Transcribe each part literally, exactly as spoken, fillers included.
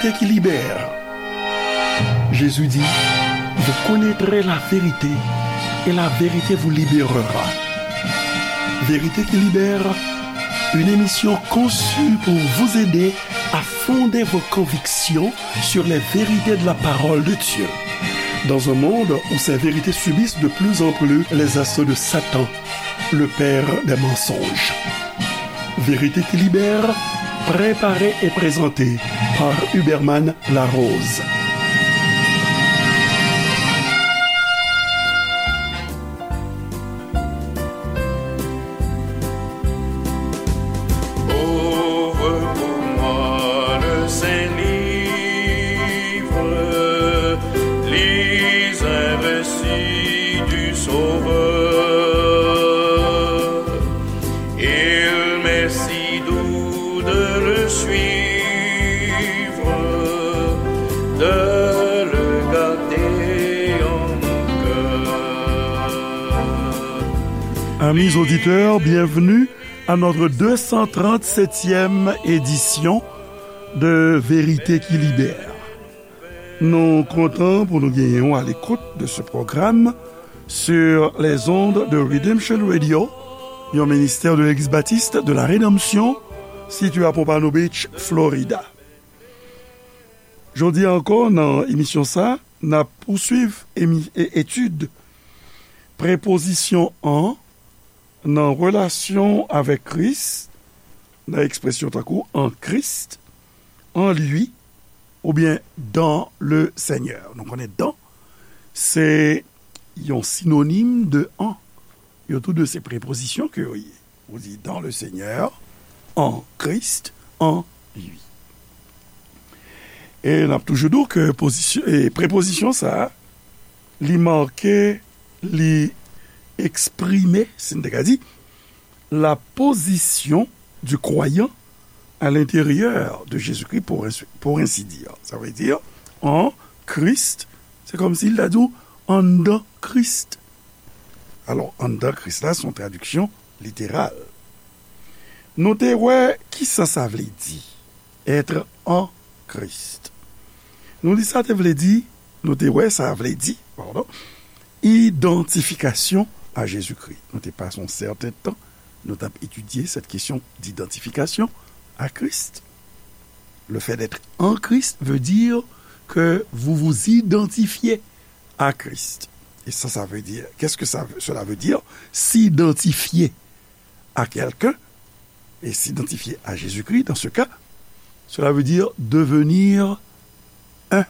Vérité qui libère. Jésus dit, vous connaîtrez la vérité et la vérité vous libérera. Vérité qui libère, une émission conçue pour vous aider à fonder vos convictions sur les vérités de la parole de Dieu. Dans un monde où ces vérités subissent de plus en plus les assauts de Satan, le père des mensonges. Vérité qui libère, préparée et présentée par Huberman Larose. Ouvre pour moi le Saint-Livre, lis un récit du Sauveur. Il m'est si doux de le suivre, de le garder en mon cœur. Amis auditeurs, bienvenue à notre deux cent trente-septième édition de Vérité qui libère. Nou kontan pou nou genyen w à l'écoute de ce programme sur les ondes de Redemption Radio, yon ministè de l'Église Baptiste de la Rédemption, sitiye à Pompano Beach, Florida. Jodi a ankò, nan emisyon sa, n ap pouswiv emi-, e-, etid prepozisyon an nan relasyon avèk Kris, nan ekspresyon tankou en Christ, en lui, oubyen dans le Seigneur. Nou konnen dans, se yon sinonim de en. Yo tou de se prepozisyon ke yo ye. Ou di dans le Seigneur, en Christ, en lui. E n ap toujou di w ke pozisyon, e prepozisyon sa a, li make, li eksprime, si n te ka di, la position du croyant à l'intérieur de Jésus-Christ, pour ainsi, pour ainsi dire. Sa vle di, en Christ, se kòmsi l ta di w anndan Kris. Alò, anndan Kris la, se yon tradiksyon literal. Nou te wè kisa sa vle di, être en Christ. Nou di sa te vle di, nou te wè sa vle di, padon, idantifikasyon a Jezikri. Nou te pase yon sèten tan, nou t ap etidye cette question d'identification à Christ. Le fait d'être en Christ veut dire que vous vous identifiez à Christ. Et ça, ça veut dire, qu'est-ce que ça, cela veut dire, s'identifier à quelqu'un et s'identifier à Jésus-Christ, dans ce cas, cela veut dire devenir un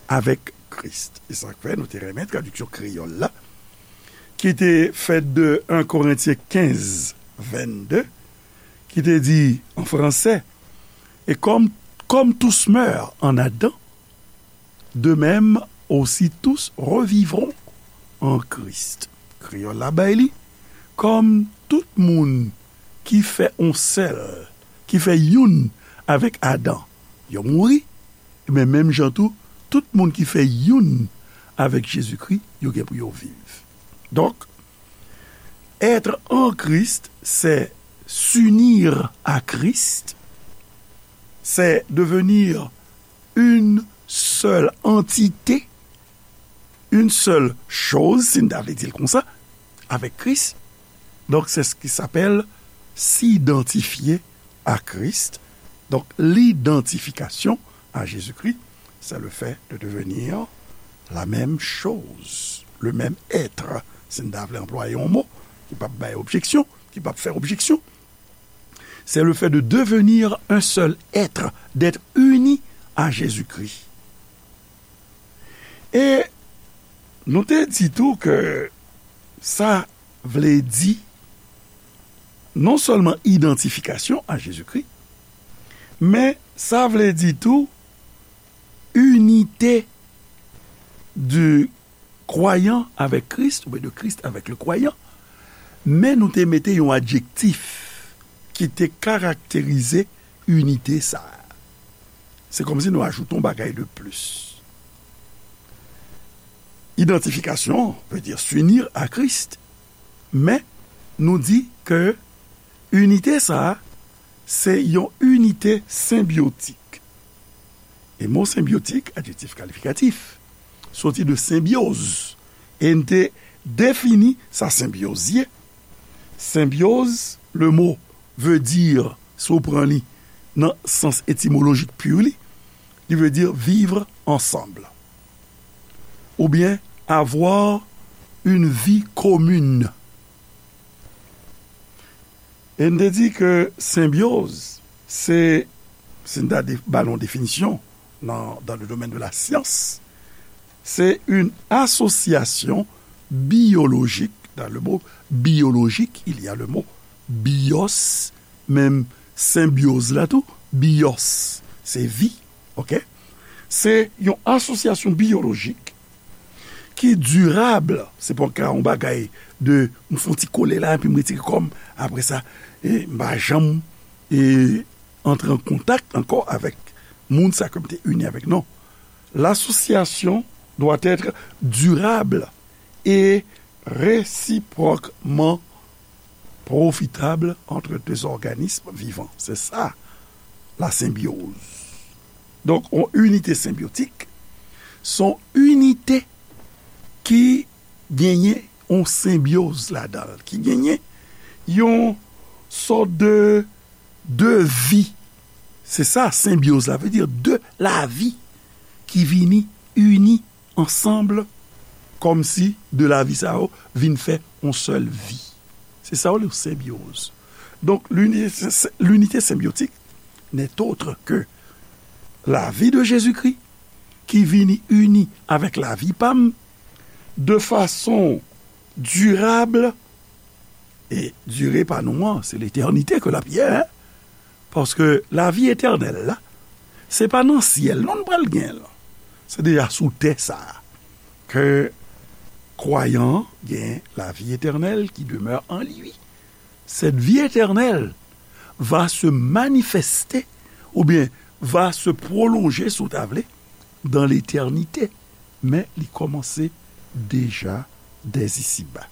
avec Christ. E sa k fè nou te renmen tradiksyon kreyòl la, ki te fèt de un Korentyen kenz, vennde, ki te di an fransè, et comme, comme tous meurent en Adam, de même aussi tous revivront en Christ. Kreyòl la bay li, kòm tout moun ki fè on sèl, ki fè youn avèk Adan, yo mouri, men menm jan tou, tout moun ki fè youn avèk Jezikri, yo gen pou yo viv. Donk, être en Christ, c'est s'unir à Christ, c'est devenir une seule entité, une seule chose, si n ta vle di l konsa, avec Christ. Donc, c'est ce qui s'appelle s'identifier à Christ. Donc, l'identification à Jésus-Christ, c'est le fait de devenir la même chose, le même être. Si n ta vle anplwaye yon mo ki p ap bay objeksyon, ki p ap fè objeksyon, c'est le fait de devenir un seul être, d'être uni à Jésus-Christ. E nou te di tou ke sa vle di non sèlman idantifikasyon a Jezikri, men sa vle di tou inite du croyant avec Christ, oubyen de Christ avec le croyant, men nou te mete yon adjektif ki te karakterize inite sa a. Se kòmsi nou ajoute yon bagay de plis. Idantifikasyon vle di s'unir à Christ, men nou di ke inite sa a, se yon inite senbyotik. E mo senbyotik, adjektif kalifikatif, soti de senbyoz. E n te defini sa senbyoz ye. Senbyoz, le mot veut dire, si w pran li nan sans étymologique pur li, li veut dire vivre ensemble. Ou bien avoir une vie commune. E n te di ke senbyoz, se, si n ta de- ba l yon definisyon nan, dans le domaine de la science, c'est une association biologique. Dans le mot biologique, il y a le mot bios, menm senbyoz la tou, bios, se vi, ok? Se yon asosyasyon biyolojik ki dirab. Se pa ka yon bagay de, m fè yon ti kole la, epi m retire kò m, apre sa, e, m pa janm, e, antre an kontak ankò avèk moun sa ke m te ini avèk. Non. L'association doit être durable et réciproquement profitable entre deux organismes vivants. Se sa, la senbyoz. Donk, yon inite senbyotik, se yon inite ki genyen yon senbyoz ladan l, ki genyen yon sòt de, de vi. Se sa, senbyoz la vle di, de lavi ki vini ini ansanm, kòmsi de lavi sa yo vin fè yon sèl vi. Se sa yo rele senbyoz. Donk, linite, linite senbyotik n'est autre que la vie de Jésus-Christ ki vini ini avèk lavi pa m de fason dirab, e dire pa nou an, se letènite ke l ap ye, en. Paske lavi etènèl la, se pa nan syèl non n pral gen l. Se deja sou tè sa a ke kwayan an gen lavi etènèl qui demeure en lui. Cette vie éternelle va se manifester, oubyen va se prolonger, si w ta vle, dans l'éternité. Men li kòmanse deja dès ici-bas.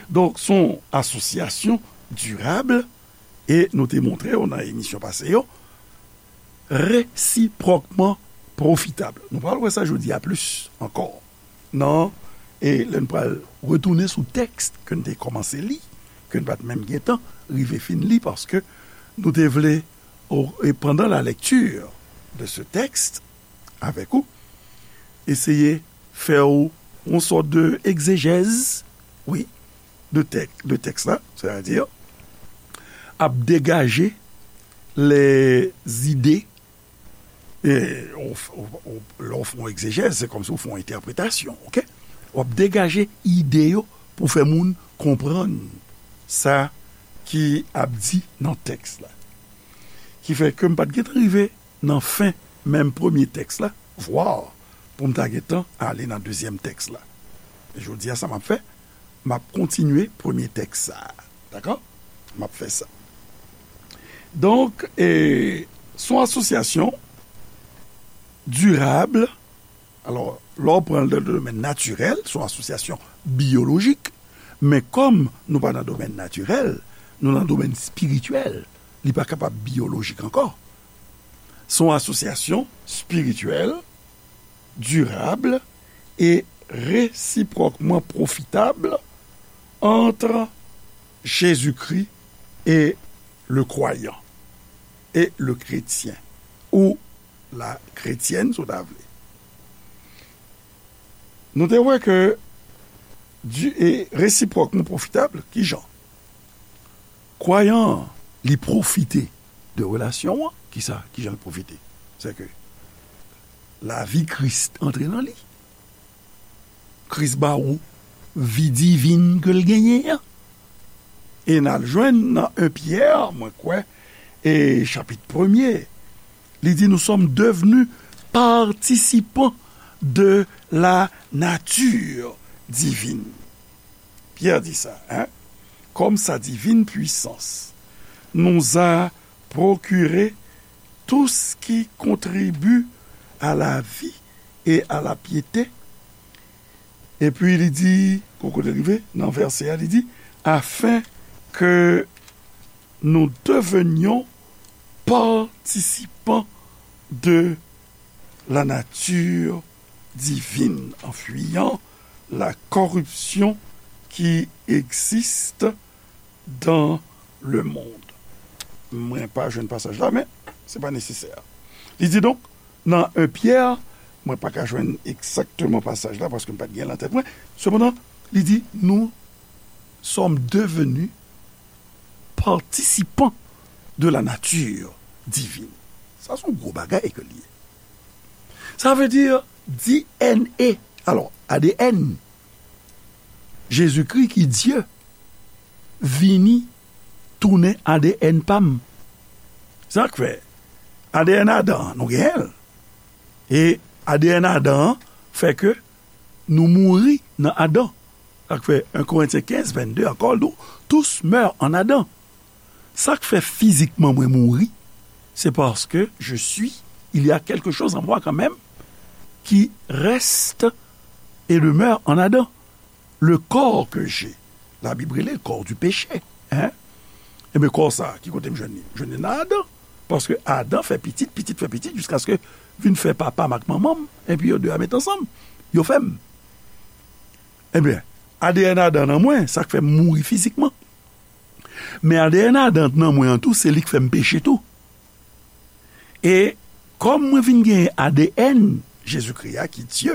Donk, se yon asosyasyon dirab, e nou te montre w nan emisyon pase yo, resipròkman pwofitab. Nou pral wè sa jodi a plis ankò. Non, e lè n pral retounen sou tèks ke n te kòmanse li, ke n pa t menm gentan rive fin li, paske nou te vle, o- e pendant la lecture de ce texte, avèk ou, eseye fè w yon sòt de egzejèz, wi, de tèk, de tèks la, sètadi ap degaje lè zide, e, ou f- ou- ou- lè w fè yon egzejèz, se kòmsi w fè yon entèpretasyon, ok? W ap degaje ide yo pou fè moun konprann sa ki ap di nan tèks la. Ki fè ke m pa t gentan rive nan fen menm premye tèks la, vwa pou m ta gentan ale nan dezyèm tèks la. E jodi a, sa m ap fè, m ap kontinye premye tèks sa a. Dakò? M ap fè sa. Donk, e, se yon asosyasyon dirab. Alò, lè w pran l nan domèn natirèl, se yon asosyasyon biyolojik. Men kòm nou pa nan domèn natirèl, nou nan domèn espirityèl, li pa kapab biyolojik ankò. Se yon asosyasyon espirityèl, dirab e resipròkman pwofitab ant Jezikri e le kwayan, e le kretyen, ou la kretyèn, si w ta vle. Nou te wè ke di, e resipròkman pwofitab, kijan? Kwayan an, li pwofite de relasyon an. Kisa? Kijan l pwofite? Se ke lavi Kris antre nan li. Kris ba ou vi divin ke l genyen an. E n al jwenn nan en Pyè, mwen kwè, e chapit premye, li di, nous sommes devenus participants de la nature divine. Pyè di sa, en? Comme sa divine puissance nous a procuré tout ce qui contribue à la vie et à la piété. Epi li di, kou kote l rive, nan vèsè a, li di, afin que nous devenions participants de la nature divine, en fuyant la corruption qui existe dans le monde. Mwen pa jwenn pasaj la, men se pa nesesè. Li di donk, nan en Pyè, mwen pa ka jwenn egzakteman pasaj la, paske m pa t gen l an tèt mwen. Sepandan, li di, nous sommes devenus participants de la nature divine. Sa se yon gwo bagay ke l ye. Sa vle di D N A. Alò, A D N, Jezikri ki Dye vini tounen A D N pa m. Sa k fè A D N Adan an, nou genyen l. E A D N Adan an fè ke nou mouri nan Adan. Sa k fè en Korentyen kenz vennde ankò, nou tous meurent en Adam. Sa k fè fizikman mwen mouri, c'est parce que je suis, il y a quelque chose en moi quand même qui reste et demeure en Adam. Le corps que j'ai, Labib rele l corps du péché, hein? Ebyen, kò sa, ki kote m jwenn li? M jwenn li nan Adan. Paske Adan fè pitit, pitit fè pitit, jiskaske vin fè papa m ak manman m, epi yo de a met ansanm, yo fè m. Ebyen, A D N Adan nan mwen, sa k fè m mouri fizikman. Men A D N Adan nan mwen an tou, se li k fè m peche tou. E kòm mwen vin genyen A D N Jezikri a, ki Dye,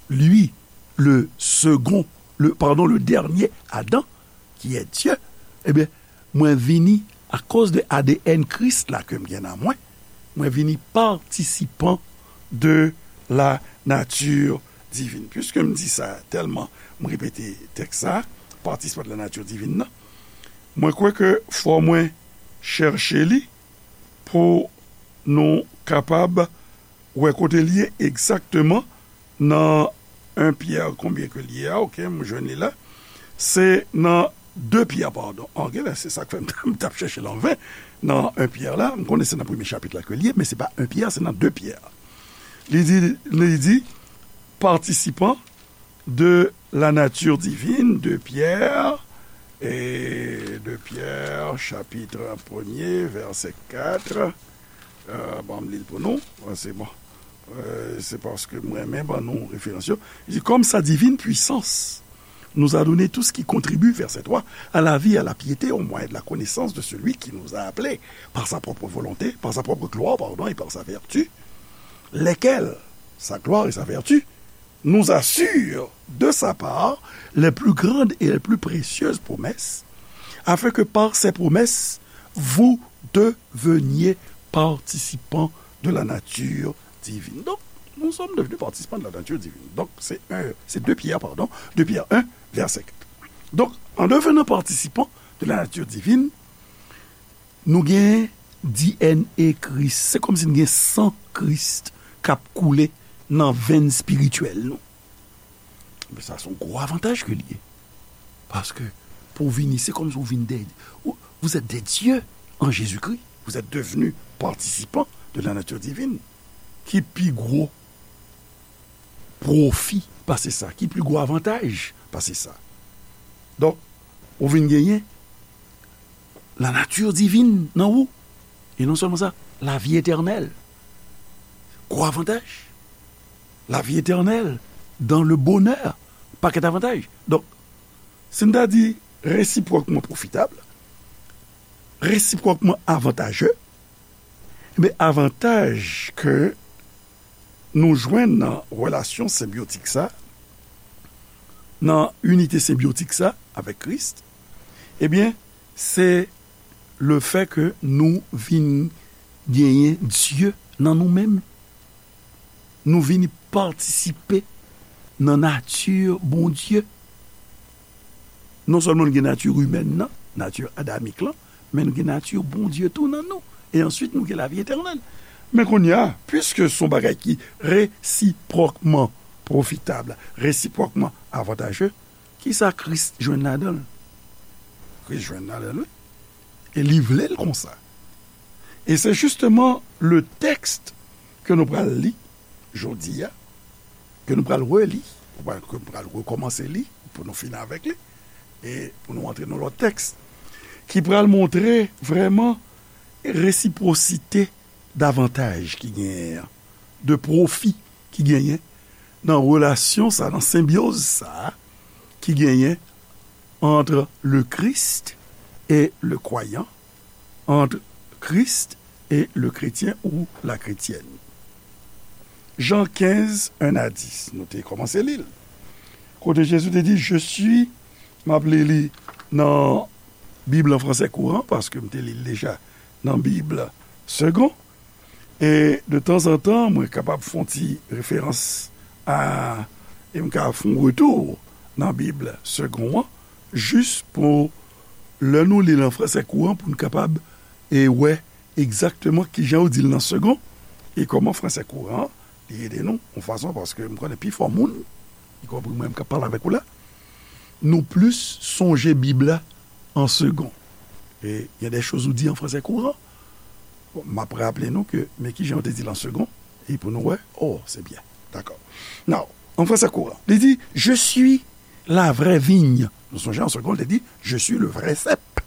lui, le second, le, pardon, le dernier Adam, qui est Dieu, ebyen, mwen vini, akoz de A D N Kris la ke m gen nan mwen, mwen vini patisipan de la nature divine. Piske m di sa tèlman, m repete tèks sa, patisipan de la nature divine nan, mwen kwè ke fò mwen chèche li pou nou kapab wè kote l ye egzakteman nan en Pyè, konbyen ke l ye a, oke, m jwenn li la. Se nan de Pyè, padon. Oke, se sa k fè m t ap chèche l anven nan en Pyè la. M konnen se nan premye chapit la ke l ye, men se pa en Pyè, se nan de Pyè. Li di, li di, patisipan de la nature divine, de Pyè, e de Pyè, chapit premye, vèsè kat. Euh, bon, m li l pou nou. Ah, se bon. Euh, se paske m renmen ban nou referans yo. Li di, comme sa divine puissance nous a donné tout ce qui contribue, verset trois, à la vie, à la piété, au moyen de la connaissance de celui qui nous a appelés par sa propre volonté, par sa propre gloire, pardon, et par sa vertu, lesquelles, sa gloire et sa vertu, nous assure de sa part les plus grandes et les plus précieuses promesses, afin que par ces promesses, vous deveniez participants de la nature divine. Donc, nous sommes devenus participants de la nature divine. Donc, c'est un, c'est deux Pierre, pardon, deux Pierre un, verset quatre. Donc, en devenant participants de la nature divine, nou gen D N A Kris. Se kòmsi n gen san Kris k ap koule nan venn espirityèl nou. Men sa se yon gwo avantaj ke l ye. Paske pou w vini, se kòmsi w vin de, ou, vous êtes des dieux en Jésus-Christ. Vous êtes devenus participants de la nature divine. Ki pi gwo pwofi pase sa? Ki pi gwo avantaj pase sa? Donk, ou vin genyen la nature divine nan ou. E non sèlman sa, lavi etènèl. Gwo avantaj. Lavi etènèl, dans le bonheur. Pakèt avantaj. Donk, si n ta di resipwòkman pwofitab, resipwòkman avantaje, men avantaj ke nou jwenn nan relasyon senbyotik sa, nan inite senbyotik sa avèk Kris, ebyen, se lefè ke nou vin genyen Dye nan nou menm. Nou vin patisipe nan nati Bondye. Non sèlman nou gen nati imèn nan, nati adamik lan, men nou gen nati Bondye tou nan nou. E answit, nou gen lavi etènèl. Men kounye a, piske se yon bagay ki resipwòkman pwofitab, resipwòkman avantaje, kisa Kris jwenn ladan l? Kris jwenn ladan l, wi. E li vle l konsa. E se jisteman le tèks ke nou pral li jodi a, ke nou pral reli, ke nou pral rekòmanse li, pou nou fini avèk li, e pou nou antre nan lòt tèks, ki pral montre vrèman resipwosite davantaj ki genyen an, de pwofi ki genyen nan relasyon sa, nan senbyoz sa ki genyen entre le Christ et le croyant, entre Christ et le chrétien ou la chrétienne. Jan kenz, en a dis, nou te kòmanse li l. Kote Jezi te di, Je suis, m ap li li nan Bib an fransè kouran, paske m te li l deja nan Bib Segond. E de tanzantan, mwen kapab fè yon ti referans a, e m ka fè yon retou nan Bib Segond an, jis pou lè nou li l an fransè kouran, pou n kapab e wè egzakteman kijan yo di l nan Segond, e kòman fransè kouran an, li ede nou, yon fason, paske m konnen pifò moun, ikonpri mwen menm k ap pale avèk ou la, nou plis sonje Bib la an Segond. E il y a des choses ou di an fransè kouran. Bon, m ap raple nou ke, men kijan yo te di l an Segond, e pou nou wè, oh, se byen. Dakò. Now, an fransè kouran, li di, Je suis la vraie vigne. Nou sonje an Segond, li te di, Je suis le vrai cep.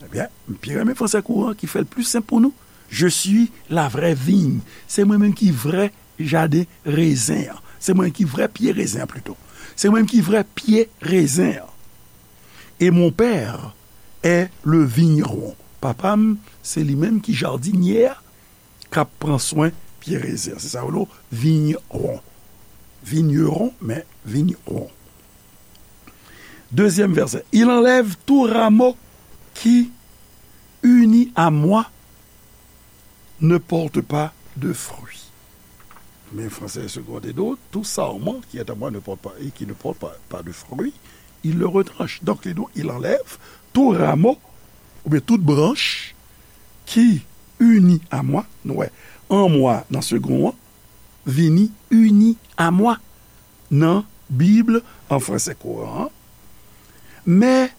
Ebyen, m pi renmen fransè kouran ki fè l pli senp pou nou. Je suis la vraie vigne. Se mwen menm ki vrè jaden rezen an. Se mwen ki vrè pye rezen an, plito. Se mwen ki vrè pye rezen an. Et mon père est le vigneron. Papa m, se li menm ki jadinye a, k ap pran swen pye rezen an. Se sa yo rele vigneron. Vigneron, men vigneron. Deuxième verset. Il enlève tout rameau qui, uni à moi, ne porte pas de fruits. Men fransè Segond te di w, tout sarman qui est à moi ne porte pas, et qui ne porte pas, pas de fruits, il le retranche. Donk, li di w, il enlève tout rameau, oubyen tout branch, qui, uni à moi, nou wè, en moi, nan Segond an, vini uni à moi nan Bib an fransè kouran an. Mais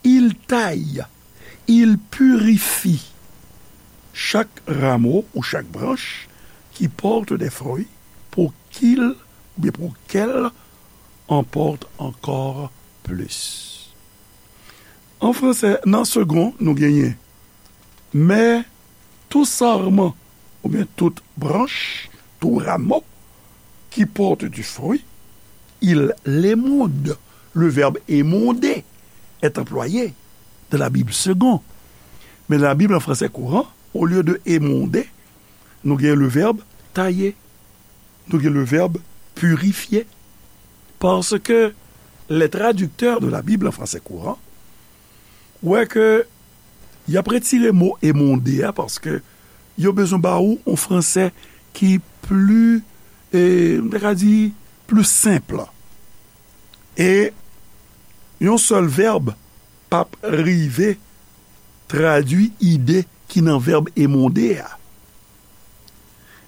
il taille, il purifie chaque rameau ou chaque branche qui porte des fruits pour qu'il, ou bien pour qu'elle en porte encore plus. An fransè, nan Segond, nou genyen, mais tout sarment, oubyen tout branch, tout rameau qui porte du fruit, il l'émonde. Le verbe émonder est employé dans la Bible Segond. Men nan Bib an fransè kouran, olye de émonder, nou gen le verbe tailler. Nou gen le verbe purifier. Parce que les traducteurs de la Bible en français courant wè ke y ap retire mo émonder a, paske yo bezwen ba ou yon fransè ki pli, e, m ta ka di, pli senp. E yon sèl vèb p ap rive tradui ide ki nan vèb émonder a.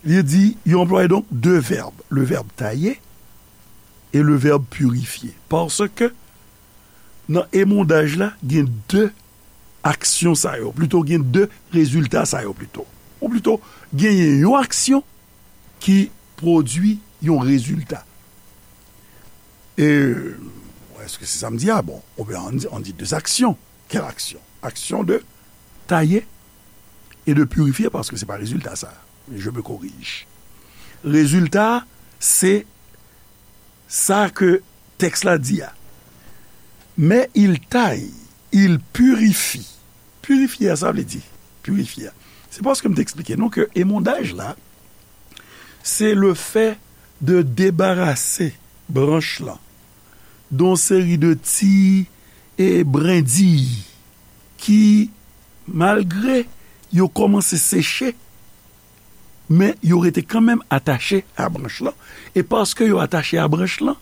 Li di, yo anplwaye donk de vèb, le verbe tailler et le verbe purifier. Paske nan émondaj la, gen de aksyon sa yo, plito gen de rezilta sa yo plito. Ou plito, genyen yon aksyon ki pwodui yon rezilta. E, èske se sa m di a? Bon, oubyen on dit, on dit deux actions. Quelle action? Action de tailler et de purifier, paske se pa rezilta sa. Je me corrige. Rezilta, se sa ke tèks la di a. Mais il taille, il purifie. Pirifye a, sa vle di, pirifye a. Se paske m te eksplike nou ke émondaj la, se le fait de débarrasser branch lan de yon seri de ti, e, brendiy ki, malgre yo kòmanse seche, men yo rete kanmenm atache a branch lan. E paske yo atache a branch lan,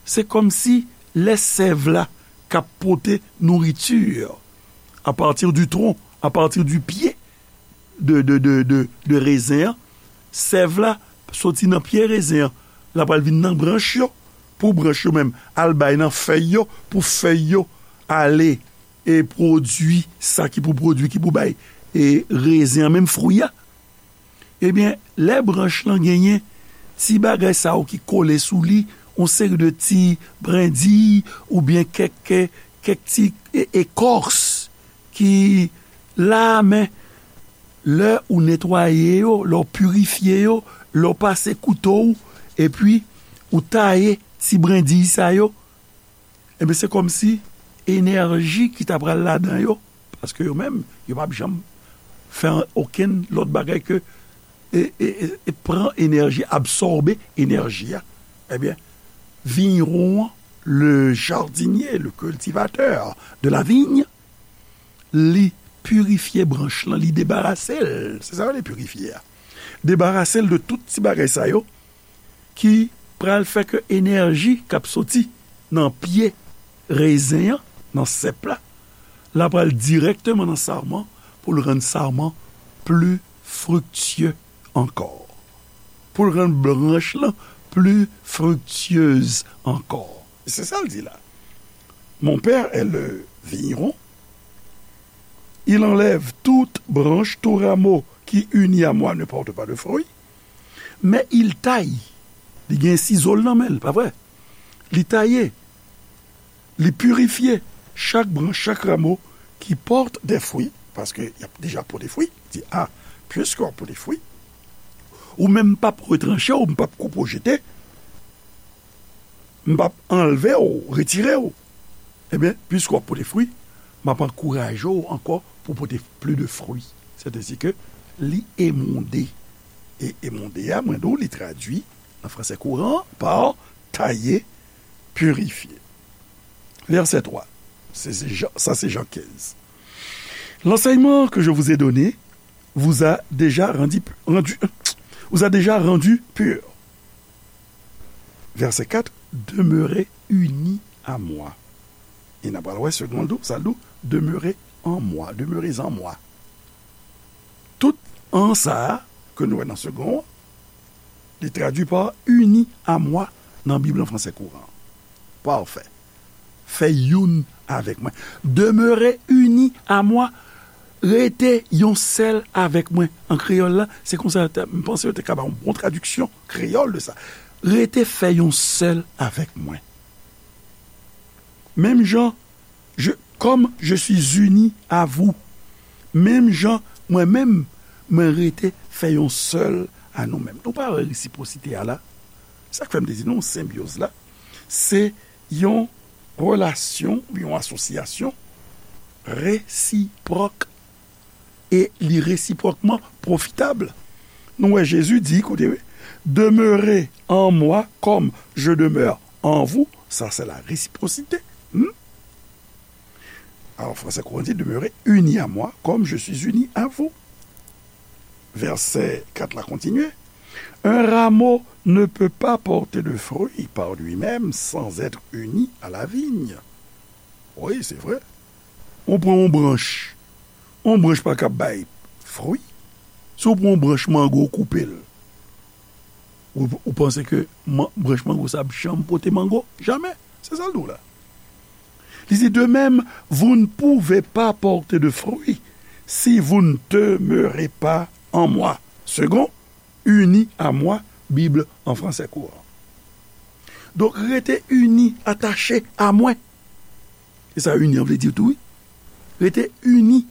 se kòmsi lè sèv la k ap pote nouriti, à partir du tronc, à partir du pied de, de, de, de, de rezen an, sèv la soti nan pye rezen an, l ap al vin nan branch yo, pou branch yo menm al bay nan fèy yo, pou fèy yo ale e pwodui sa ki pou pwodui, ki pou bay, e rezen an menm fwi a. Ebyen, lè branch lan genyen ti bagay sa yo ki kole sou li, yon seri de ti brendiy oubyen kèk, kèk ti e-, ekòs ki la, men Lè ou netwaye yo, lè w pirifye yo, lè w pase kouto w, epi ou taye ti brendiy sa yo, ebyen, se kòmsi enèji ki ta pral ladan yo, paske yo menm, yo p ap janm fè okenn lòt bagay ke e, e, e, e pran enèji, absòbe enèji a, ebyen, vigneron an, le jardinier, le cultivateur de la vigne, li pirifye branch lan, li debarase l. Se sa yo rele pirifye a. Debarase l de tout ti bagay sa yo ki pral fè ke enèji k ap soti nan pye rezen an, nan sèp la, la pral dirèkteman nan sarman pou l rann sarman pli friktye ankò. Pou l rann branch lan pli friktyez ankò. Se sa l di la. Mon père est le vigneron. Il enlève toute branche, tout rameau qui, uni à moi, ne porte pas de fruit. Mais il taille. Li gen sizo l nan men l, pa vre? Li taye. Li pirifye chak branch, chak ramo ki pòte de fwi, paske y ap deja pote fwi. Di, a, piske w ap pote fwi, ou menm m p ap retranche w, m p ap koupe w jete, m p ap anlve w, retire w. Ebyen, piske w ap pote fwi, m ap ankouraje w ankò pou pote pli de fwi. Sètadi ke li emonde. E emonde a, mwen di w, li tradui nan fransè kouran pa taye, pirifye. Verset trois. C'est, c'est Jean, ça, c'est Jean quinze. L'enseignement que je vous ai donné vous a déjà rendu, rendu, vous a déjà rendu pur. Verset quatre, demeurez unis à moi. E n ap pral wè segonn tou, sa l di, demeurez en moi, demeurez en moi. Tout en sa a ke nou wè nan segonn an, li tradui pa uni à moi nan Bib an fransè kouran. Pafè. Fè youn avèk mwen. Demeurez unis à moi. Rete yon sèl avèk mwen. An kreyòl la, se konsa yo te, m panse yo te ka ba yon bon tradiksyon kreyòl de sa. Rete fè yon sèl avèk mwen. Menm jan, je, comme je suis uni à vous. Menm jan, mwen menm, mwen rete fè yon sèl a nou menm. Nou pa wè resipwosite a la? Sa k fè m te di nou, senbyoz la, se yon relasyon, yon asosyasyon resipwòk, e li resipwòkman pwofitab. Nou wè Jezi di, koute, wi, demeurez en moi comme je demeure en vous, ça c'est la réciprocité. Hmm? Alors, fransè kouran di, demeurez unis à moi comme je suis uni à vous. Verset quatre la kontinye. Un rameau ne peut pas porter de fruits par lui-même sans être uni à la vigne. Wi, se vre. Ou pran yon branch. Yon branch pa kab bay fwi. Si w pran yon branch mango, ou koupe l. Ou, ou panse ke man, branch mango sa ap janm pote mango? Jamè. Se sa l di w la. Li di, de même, vous ne pouvez pas porter de fruits si vous ne demeurez pas en moi. Seconde, unis à moi, Bib an fransè kouran. Donk, rete ini, atache a mwen. E sa ini an vle di tou, wi. Rete ini,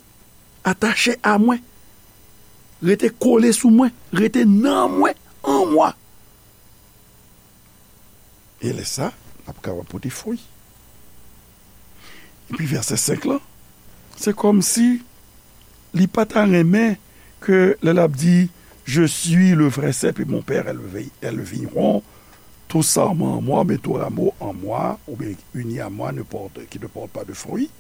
atache a mwen. Rete kole sou mwen. Rete nan mwen, an mwa. E lè sa, n ap kapab pote fwi. Epi vèsè senk lan, se kòmsi li pa ta renmen ke lè l ap di, je suis le vrai cep et mon père est le vi-, est le vigneron, tout sarment en moi, mais tout rameau en moi, ou bien uni à moi, ne porte, qui ne porte pas de fruit,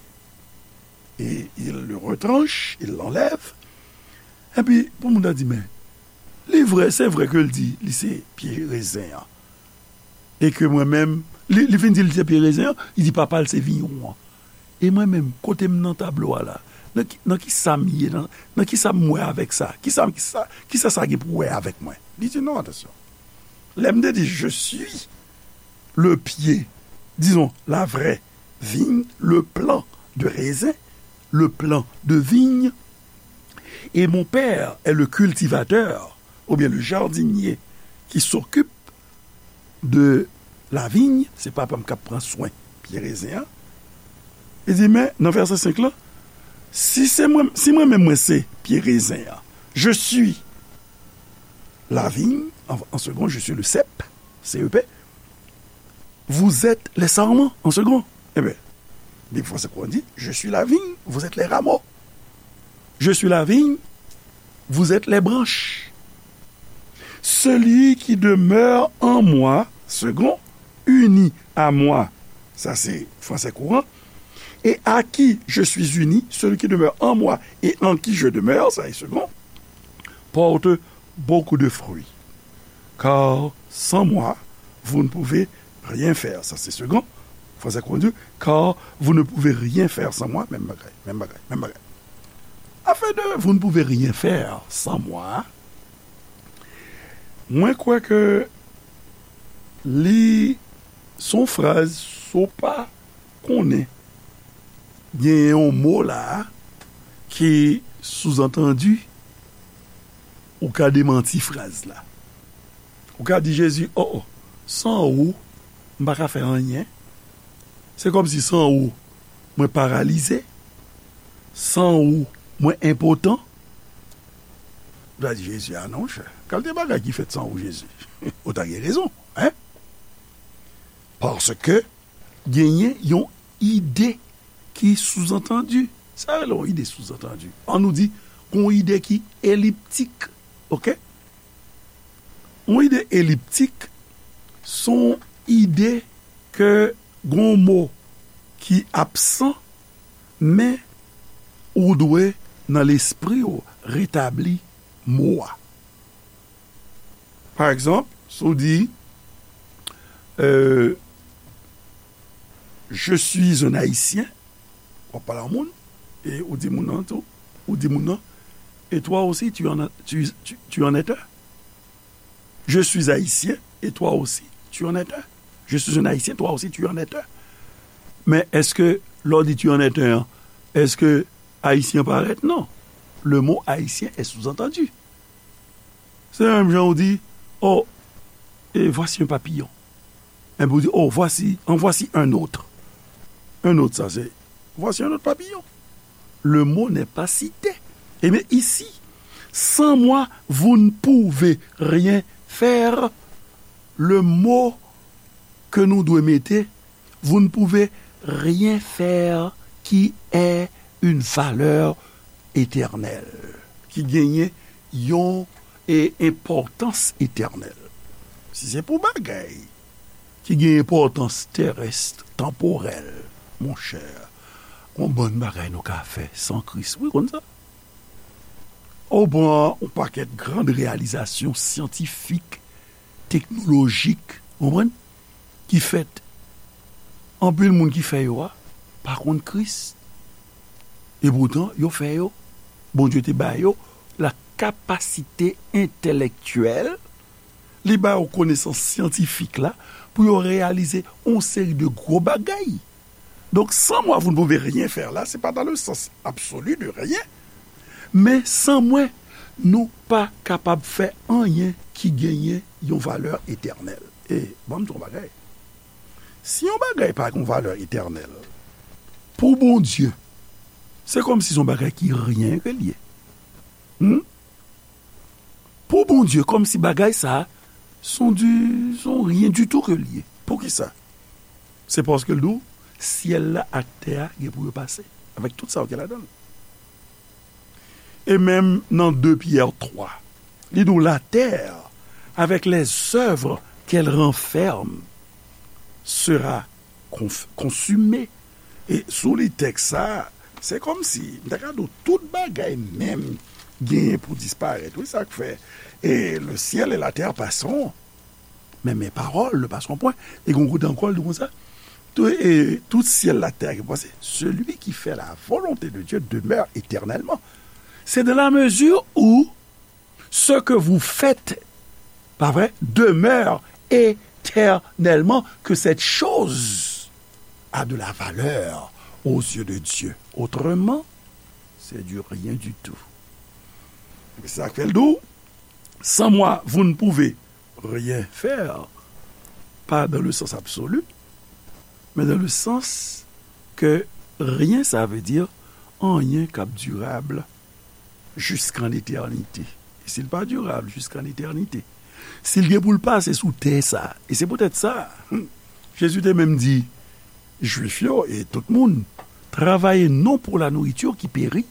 et il le retranche, il l'enlève. Epi, pou moun nan di, men, li vre, se vre ke l di, li se pye rezen an. E ke mwen menm, li, li fin di l se pye rezen an, li di papa l se vigneron an. E mwen menm, kote m nan tablo a la, nan ki, nan ki sa m ye, nan, nan ki sa m wè avèk sa, ki sa, ki sa, ki sa sa gen pou wè avèk mwen? Li di non, atansyon. Lè m te di, je suis le pied, disons, la vraie vigne, le plant de raisin, le plant de vigne, et mon père est le cultivateur, ou bien le jardinier, qui s'occupe de la vigne, se papa m k ap pran swen pye rezen an. Li di, men, nan vèsè senk lan, si se mwen, si mwen menm mwen se pye rezen an, Je suis la vigne, en, en second, je suis le cep, C E P. Vous êtes les sarments, en second. Ebyen, Bib Fransè Kouran di, je suis la vigne, vous êtes les rameaux. Je suis la vigne, vous êtes les branches. Celui qui demeure en moi, second, uni à moi, sa se Fransè Kouran, et à qui je suis uni, celui qui demeure en moi et en qui je demeure, sa se second, porte beaucoup de fruits. Car sans moi, vous ne pouvez rien faire. Sa se second. Fransè Kouran di, car vous ne pouvez rien faire sans moi, menm bagay, menm bagay, menm bagay. Afè de vous ne pouvez rien faire sans moi, mwen kwè ke li se yon fraz, si w pa konnen, gen yon mo la ki souzantandi, ou ka demanti fraz la. Ou ka di Jezi, o, o, san ou, m pa ka fè anyen. Se kòmsi san ou, mwen paralize. San ou, mwen enpotan. Ou ta di Jezi, a non, chè. Kalite bagay ki fèt san ou, Jezi. Ou ta gen rezon, en? Paske genyen yon ide ki souzantandi. Sa rele yon ide souzantandi. An nou di, yon ide ki eliptik. Oke? Yon ide eliptik, se yon ide ke gon mo ki absan, men ou dwe, nan lespri w, retabli mo a. Pa egzanp, si w di, euh, je suis un Haïtien, w ap pale a moun, e ou di moun nan tou, ou di moun nan, et toi aussi, tu en, tu, tu, tu en es un. Je suis haïtien, et toi aussi, tu en es un. Je suis un Haïtien, toi aussi, tu en es un. Men èske lè w di tu en es un an, èske Ayisyen parèt? Non. Le mot haïtien est sous-entendu. Se menm jan ou di, oh, et voici un papillon. Epi ou di, oh, voici, en voici un autre. Un autre, sa se, voici un autre papillon. Le mot n'est pas cité. Et mais ici, sans moi, vous ne pouvez rien faire. Le mot ke nou dwe mete, vous ne pouvez rien faire, qui est une valeur éternelle, ki genyen yon, e, enpòtans etènèl. Si se pou bagay ki gen enpòtans terès, tanporèl, monchè, gon bann bagay nou ka fè san Kris, wi, konn sa. Ou pran yon pakèt gran reyalizasyon syantifik, teknolojik, ou konprann, ki fèt. Anpil moun ki fè yo a pa konn Kris. E poutan, yo fè yo. Bondye te ba yo la kapasite entèlèktyèl, li ba yo konesans syantifik la pou yo reyalize yon seri de gwo bagay. Donk, sans moi, vous ne pouvez rien faire la, se pa dans le sens absolu de rien, men san mwen, nou pa kapab fè anyen ki genyen yon valè etènèl. E, ban m di w yon bagay. Si yon bagay pa gen yon valè etènèl, pou Bondye, se kòmsi se yon bagay ki ryen ke l ye. Hmm? Pou Bondye, kòmsi bagay sa a, se yon di, se yon ryen ditou ke l ye. Poukisa? Se paske l di w, syèl la ak tè a gen pou yo pase, avèk tout sa yo gen ladan l. E menm nan de Pyè twa, li di w, la terre, avec les œuvres qu'elle renferme, sera conf-, consumée. E si w li tèks sa a, se kòmsi, m ta ka di w, tout bagay menm genyen pou disparèt. Wi, sa k fè, e le ciel et la terre passeront, mais mes paroles ne passeront point. E gon kote ankò, l di konsa, tout, e, tout syèl la tè a ki pase, celui qui fait la volonté de Dieu demeure éternellement. C'est dans la mesure où ce que vous faites, pa vre, demeure éternellement que cette chose a de la valeur aux yeux de Dieu. Autrement, c'est du rien du tout. Se sa k fè l di w, sans moi, vous ne pouvez rien faire, pas dans le sens absolu, mais dans le sens que rien, ça veut dire anyen k ap dirab Jusqu'en éternité. E si l pa dirab, jusqu'en éternité. Si l gen pou l pase sou tè sa, e se poutèt sa, hmm, Jezi te menm di Jwif yo e tout moun, travaillez non pour la nourriture qui périt,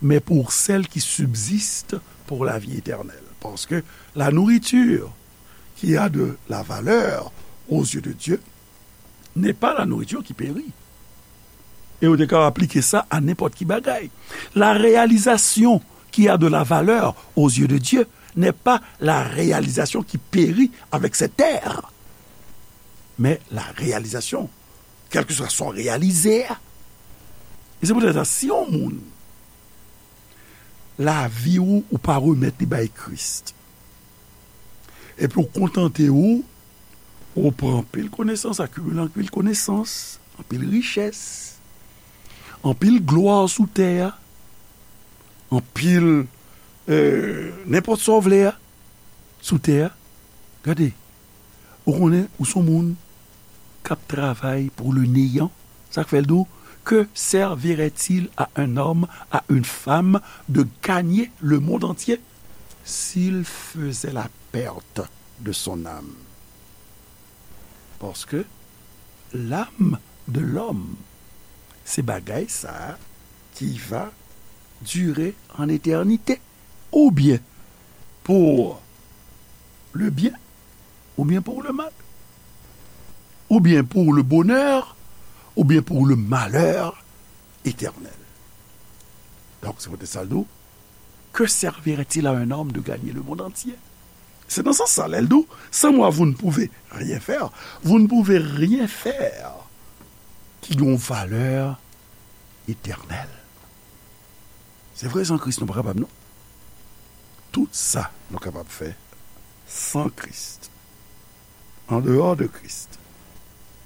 mais pour celle qui subsiste pour la vie éternelle. Parce que la nourriture qui a de la valeur aux yeux de Dieu n'est pas la nourriture qui périt. E ou te ka aplike sa a nenpòt ki bagay. La réalisation qui a de la valeur aux yeux de Dieu n'est pas la réalisation qui périt avec cette terre, mais la réalisation, quel que soit son réalisé. E se poutèt sa, si yon moun, lavi ou, ou pa remèt li bay Kris, epi ou kontante ou, ou pran anpil konesans, akimile anpil konesans, anpil richès, anpil glwa sou tè a, anpil, euh, nenpòt sa w vle a, sou tè a. Gade, ou konnen, ou se yon moun k ap travay pou le néant. Sa k fè l di w, que servirait-il à un homme, à une femme, de gagner le monde entier s'il faisait la perte de son âme? Parce que l'âme de l'homme, se bagay sa a qui va durer en éternité. Ou bien pour le bien, ou bien pour le mal, ou bien pour le bonheur, ou bien pour le malheur éternel. Donk, se poutèt sa l di w, que servirait-il à un homme de gagner le monde entier? Se nan sans sa, lè l di w, sans moi, vous ne pouvez rien faire, vous ne pouvez rien faire qui a une valeur éternelle. Se vre, san Kris, nou pa kapab, non. Tout sa nou kapab fè san Kris, an deyò de Kris,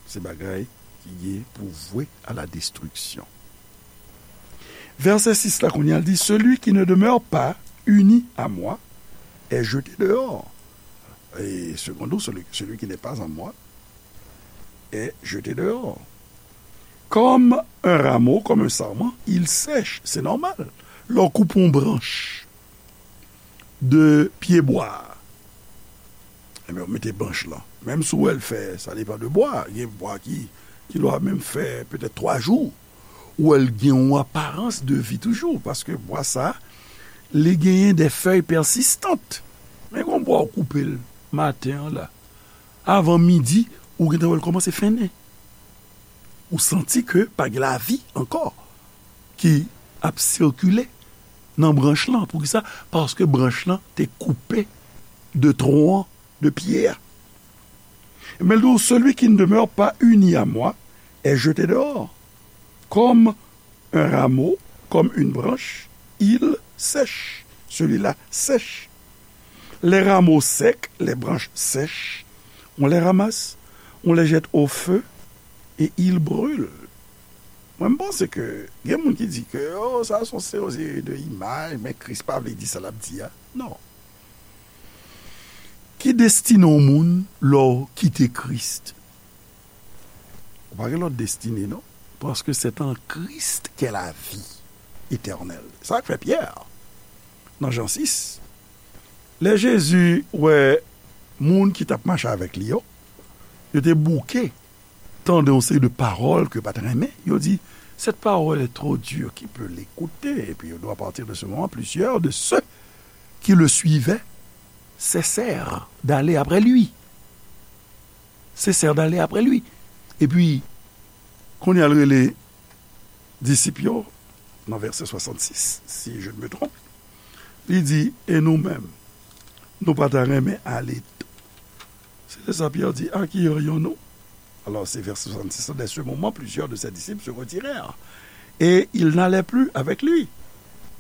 se bagay ki gen pou vwe a la destriksyon. Vèsè sis la, kounye a, l di, celui qui ne demeure pas uni à moi est jeté dehors. Et seconde, celui, celui qui n'est pas en moi est jeté dehors. Comme un rameau, comme un sarment, il sèche. Se nòmal. Lè w koupe yon branch de pye bwa, ebyen, w mete branch lan. Menm si w wè l fè, sa depann de bwa. Gen bwa ki, ki dwa menm fè petèt twa jou. Ou wè l gen yon aparans de vi toujou, paske bwa sa, li genyen de fèy pèsistan. Men gon bwa w koupe l maten an la, avan midi, ou gentan wè l kòmanse fennen. Ou santi ke pa gen lavi ankò ki ap sikile nan branch lan. Poukisa? Paske branch lan te koupe de twon an, de pye a. Men l di w, celui qui ne demeure pas uni à moi est jeté dehors. Comme un rameau, comme une branche, il sèche. Celui-là sèche. Les rameaux secs, les branches sèches, on les ramasse, on les jette au feu et ils brûlent. Mwen, m panse ke gen moun ki di ke, oh, sa se yon seri de imaj, men Kris pa vle di sa l ap di a. Non. Ki destine yon moun lè w kite Kris? Ou pa gen lòt destine, non. Parce que c'est en Christ qu'est la vie éternelle. Sa k fè Pyè, nan Jan sis, lè Jezi wè moun ki t ap mache avèk li yo, yo te bouke tande yon seri de pawòl ke yo pa t renmen. Yo di, cette parole est trop dure, qui peut l'écouter? Et puis, à partir de ce moment, plusieurs de ceux qui le suivaient cessèrent d'aller après lui. Cessèrent d'aller après lui. Epi, kounye a l rele disip yo, nan vèsè swasannsis, si je ne me trompe, li di, e nou menm, nou pa ta renmen ale tou? Se de sa Pyè di, à qui irions-nous? Alors, c'est vers soixante-six, dès ce moment, plusieurs de ses disciples se retirèrent, et ils n'allaient plus avec lui.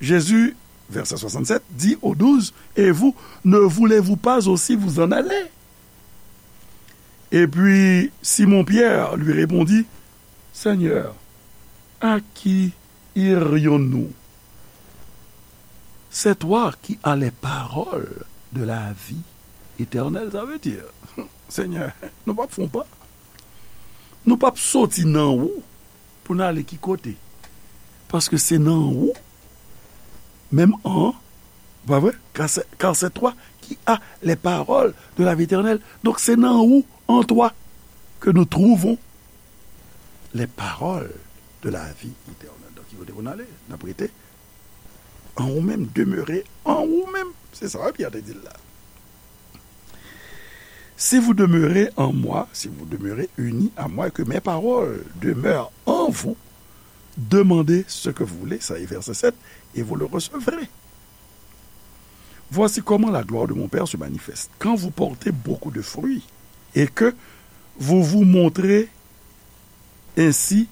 Jésus, verset soixante-sept, dit aux douze, et vous, ne voulez-vous pas aussi vous en aller? Et puis Simon Pierre lui répondit, Seigneur, à qui irions-nous? C'est toi qui as les paroles de la vie éternelle. Ça veut dire, Senyè, nou p ap fè yon pa. Nou p ap soti nan ou pou n ale ki kote. Paske se nan ou Menm an, pa vre? Car c'est, car c'est toi qui as les paroles de la vie éternelle. Donk, se nan ou, en toi, que nous trouvons les paroles de la vie éternelle. Donk, ki kote pou n ale? N ap rete an ou menm, demeurer en ou menm. Se sa, Pyè te di l la. Si vous demeurez en moi, si vous demeurez unis à moi et que mes paroles demeurent en vous, demandez ce que vous voulez, ça est verset sept, et vous le recevrez. Voici comment la gloire de mon Père se manifeste. Quand vous portez beaucoup de fruits et que vous vous montrez ainsi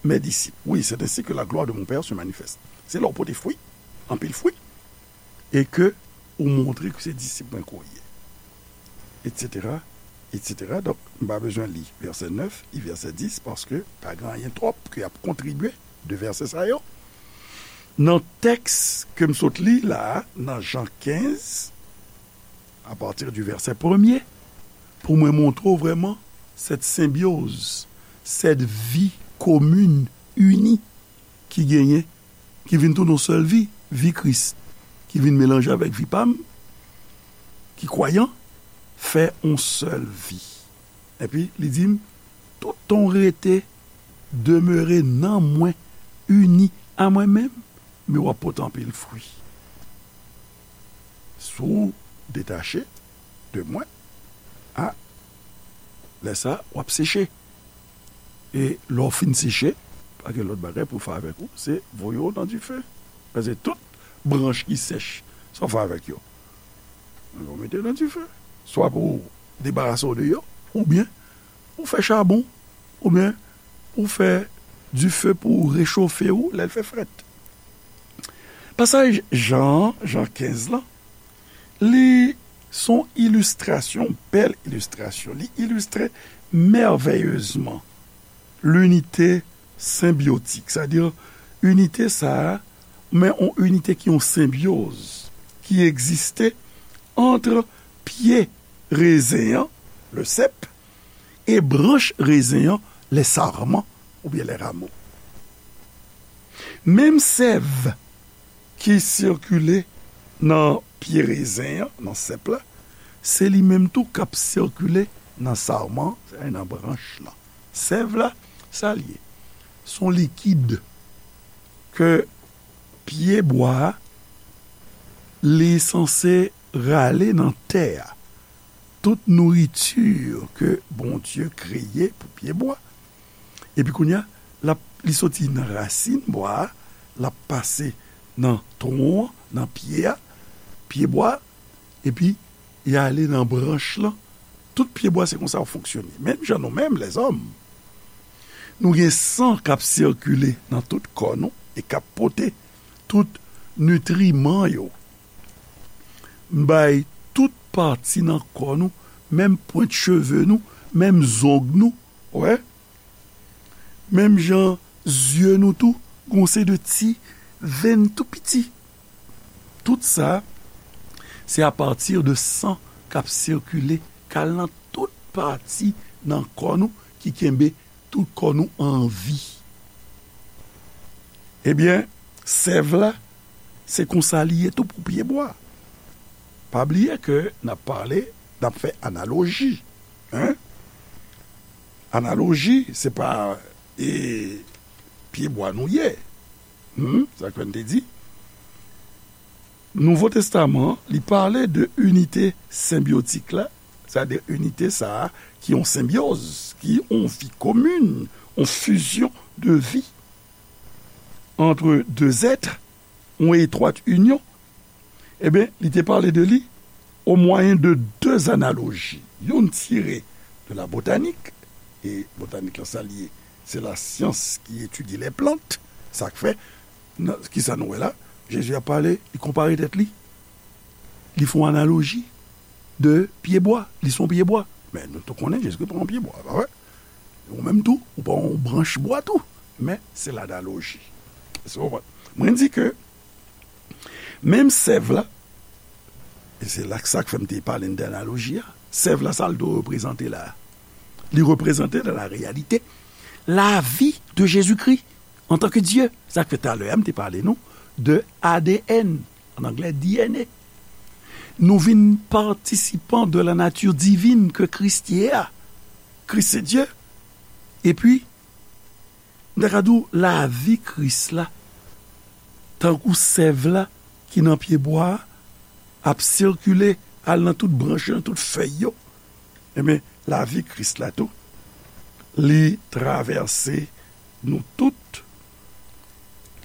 mes disciples. Oui, c'est ainsi que la gloire de mon Père se manifeste. Se lè w pote fwi, anpil fwi, e ke ou montre ke se disip mwen ke w ye. Etsetera, etsetera. Donk, m pa bezwen li vèsè nèf e vèsè dis, paske pa gen anyen twòp ke y ap kontribye de vèsè sa yo. Nan tèks ke m sot li la a, nan Jan kenz, apati di vèsè premye, pou mwen montre w vrèman cette symbiose, cette vie commune, unie, ki genyen, ki vin tounen yon sèl vi, vi Kris, ki vin melanje avèk vi pa m, ki kwayan, fè yon sèl vi. Epi, li di m, toutan w rete, demere nan mwen, ini a mwen menm, men w ap pote anpil fwi. Si w detache de mwen, a, lè sa, w ap seche. E lè w fin seche, pa gen lòt bagay pou w fè avèk ou, se voye w nan dife. Paske tout branch ki sèch, sa w fè avèk yo? Yo mete nan dife. Swa pou w debarase w de yo, oubyen pou w fè chabon, oubyen pou w fè dife pou w rechofe w lè l fè frèt. Pasaj Jan an, Jan kenz lan, li se yon ilistrasyon, bèl ilistrasyon. Li ilistre mèvèyezman linite senbyotik, sètadi inite sa a, men yon inite ki yon senbyoz, ki egziste ant pye rezen an, le sèp, e branch rezen an, les sarments oubyen les rameaux. Menm sèv ki sikile nan pye rezen an, nan sèp la, se li menm tou k ap sikile nan sarman, sètadi nan branch lan. Sèv la, sa l ye? Se yon likid ke pye bwa a, li sanse rale nan tè a. Tout nouriti ke Bondye kreye pou pye bwa. Epi kounye a, l ap, li soti nan rasin bwa a, l ap pase nan twon an, nan pye a, pye bwa a, epi li ale nan branch lan. Tout pye bwa se konsa yo fonksyone. Menm jan nou menm, lèzòm, nou gen san k ap sikile nan tout kò nou e k ap pote tout nitriman yo bay tout pati nan kò nou, menm pwent cheve nou, menm zong nou, wè. Menm jan zye nou tou, gon se de ti venn tou piti. Tout sa, se apati de san k ap sikile, k al nan tout pati nan kò nou, ki kenbe tout kò nou an vi. Ebyen, sèv la, se konsa li ye tou pou pye bwa. Pa bliye ke n ap pale, n ap fè analoji. Hein? Analoji, se pa, e, pye bwa nou ye. Hmm? Sa k fè n te di. Nouvo Testaman, li pale de inite senbyotik la, sètadi inite sa a ki yon senbyoz, ki yon vi komin, yon fizyon de vi ant de zèt, yon etwat inyon. Ebyen, li te pale de li o mwayen de de analoji. Youn tire de la botanik, e botanik lan sa l ye, se la syans ki etidye lè plant. Sa k fè, nan, kisa nou wè la? Jezi ap pale, li konpare tèt li. Li fè yon analoji de pye bwa. Li se yon pye bwa. Men nou tou konnen Jezikri pa yon pye bwa, pa vre? Ou menm tou, ou pa yon branch bwa tou. Men se lanaloji. Èske w konprann? Mwen di ke menm sèv la, e se la sa k fè m te pale n de analoji a, sèv la, sa l dwe reprezante la? Li reprezante dans la réalité la vie de Jésus-Christ en tant que Dieu. Sa k fè talè a m te pale nou de A D N, an anglè D N A. Nou vin patisipan de la nature divine ke Kris ye a. Kris se Dye. Epi, m ta ka di w, lavi Kris la, tankou sèv la ki nan pye bwa a, ap sikile, al nan tout branch yo, nan tout fèy yo. Ebyen, lavi Kris la tou, li travèse nou tout,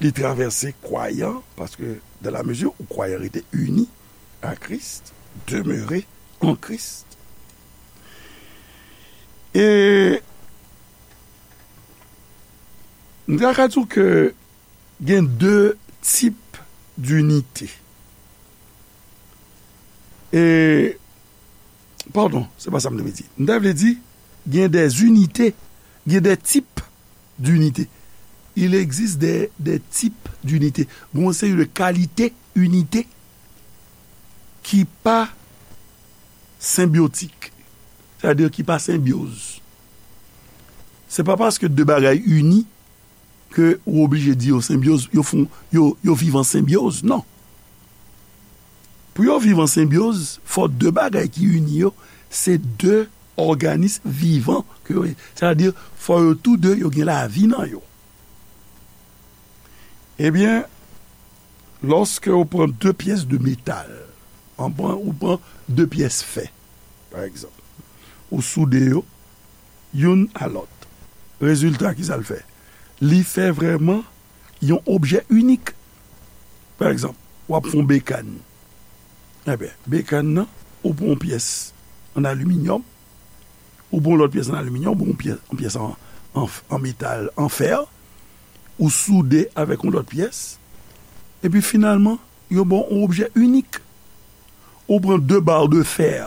li travèse kwayan, paske dans la mesure où croyant rete ini à Christ, demeurer en Christ. E m ta ka di w ke gen de tip dinite. E, padon, se pa sa m te vle di. M ta vle di, gen de inite, gen de tip dinite. Il existe des, des types d'unité. Gen yon seri de kalite inite ki pa senbyotik. Sètadi ki pa senbyoz. Se pa paske de bagay ini ke ou oblije di yo senbyoz, yo fon, yo, yo viv an senbyoz. Non. Pou yo viv an senbyoz, fò de bagay ki ini yo, se de òganis vivan ke yo ye. Sètadi, fò yo tou de, yo gen lavi nan yo. Ebyen, lòske ou pran de pyès de metal, an pran, ou pran de pyès fè, pa egzanp, ou soude yo, youn a lòt. Rezilta, ki sa l fè? Li fè vrèman yon objè inik. Pa egzanp, w ap fè yon bekàn. Ebyen, bekàn nan, ou pran yon pyès an aliminyòm, ou pran yon lòt pyès an aliminyòm, ou pran yon pyès, yon pyès an, an, an metal, an fè, ou soude avèk yon lòt pyès, epi finalman, yo ba w yon objè inik. Ou pran de ba de fè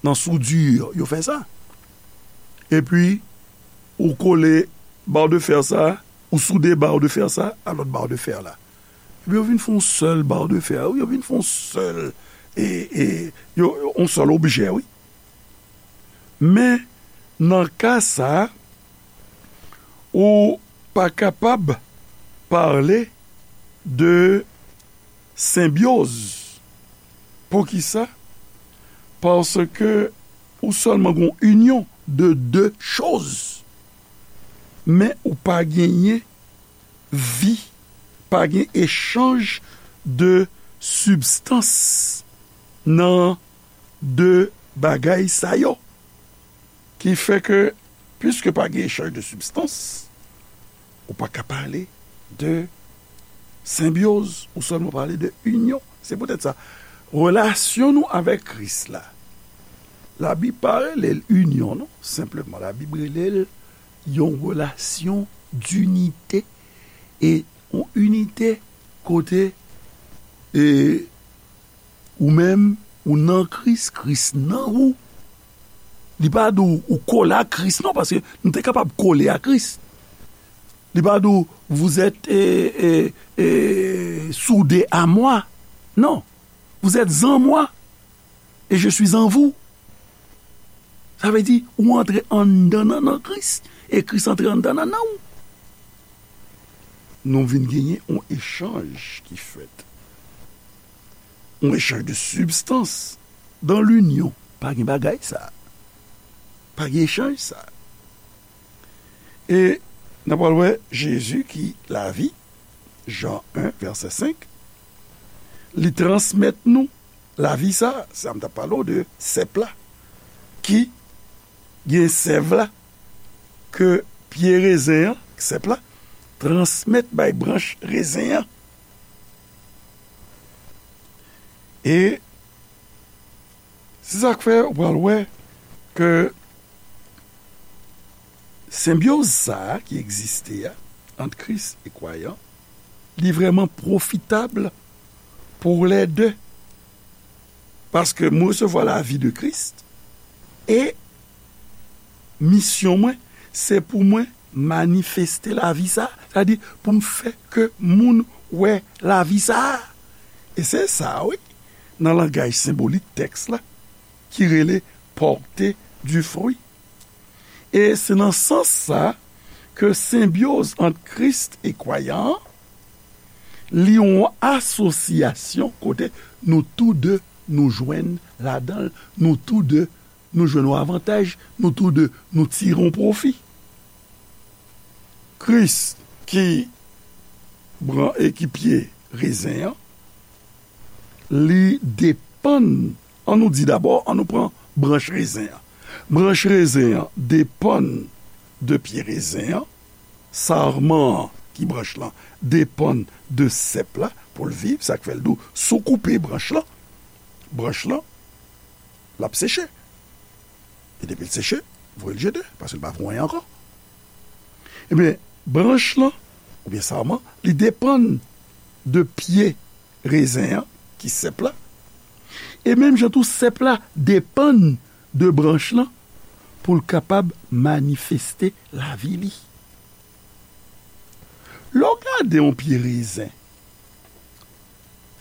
nan soudure, yo fè sa. Epi, ou kole ba de fè sa, ou soude ba de fè sa a lòt ba de fè la. Epi yo vin fè yon sèl ba de fè, yo vin fè yon sèl, e, e, yo, yon sèl objè, wi. Men, nan ka sa a, ou pa kapab pale de senbyoz. Poukisa? Paske ou sèlman gen yon inyon de de choz, men ou pa genyen vi, pa gen echanj de sibstans nan de bagay sa yo. Ki fè ke, piske pa gen echanj de sibstans, ou pa ka pale de senbyoz, ou sèlman pale de inyon. Se poutèt sa, relasyon nou avèk Kris la, Labib pa rele l inyon, non. Senpleman, Labib rele l yon relasyon dinite, e yon inite kote, e, ou menm, ou nan Kris, Kris nan ou. Li pa di w ou kole a Kris, non, paske nou te kapab kole a Kris. Li pa di w, vous êtes, e, e, e, soudés à moi. Non. Vous êtes en moi et je suis en vous. Sa vle di, ou antre anndan nan, nan Kris, e Kris antre anndan nan, nan ou. Nou vin genyen yon echanj ki fèt. Yon echanj de sibstans. Dan linyon, pa gen bagay sa. Pa gen echanj sa. E n ap pral wè Jezi ki lavi, Jan en, vèsè senk, li transmèt nou lavi sa, sa m t ap pale w de sèp la, ki gen sèv la, ke pye rezen an, sèp la, transmèt bay branch rezen an. E se sa k fè ou pral wè ke senbyoz sa a ki egziste a, ant Kris e kwayan, li vrèman pwofitab pou lè de. Paske mwen resevwa lavi de Kris, e misyon mwen, se pou mwen manifeste lavi sa a, sètadi pou m fè ke moun wè lavi sa a. E se sa, wi, nan langaj senbolik tèks la, ki rele porter du fruit. E se nan sans sa ke senbyoz ant Kris e kwayan an, Li yon asosyasyon kote nou tou de nou jwenn ladan l, nou tou de nou jwenn yon avantaj, nou tou de nou tire yon pwofi. Kris ki bran e ki pye rezen an, li depann, an nou di dabò, an nou pran branch rezen an. Branch rezen an depann de pye rezen an, sarman an ki branch lan depann de sèp la pou l viv, sa k fè l di w, si w koupe branch lan, branch lan, l ap seche. E depi l seche, voye l jete, paske l pa vo anyen ankò. Ebyen, branch lan, oubyen sarman, li depann de pye rezen an, ki sèp la. E menm jan tou, sèp la depann de branch lan pou l kapab manifeste lavi li. Lè w gade yon pye rezen,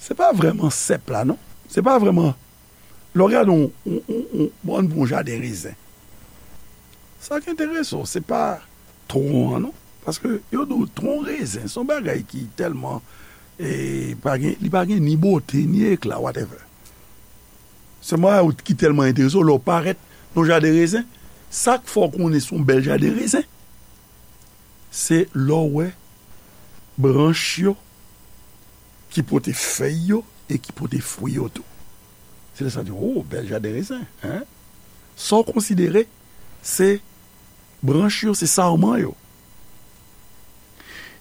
se pa vrèman sèp la, non. Se pa vrèman, lè w gade yon, yon, yon, yon, bon, yon jaden rezen. Sa k enterese w, se pa twon an, non. Paske yo di w twon rezen, se yon bagay ki tèlman, e, pa gen, li pa gen ni bote, ni ekla, whatever. Se yon bagay ki tèlman enterese w, lè w parèt nan jaden rezen, sa k fè w konnen se yon bèl jaden rezen, se lè w wè branch yo ki pote fèy yo e ki pote fwi yo tou. Se lè sa di, "O, bèl jaden rezen, en?" Sa w konsidere, se branch yo, se sarman yo.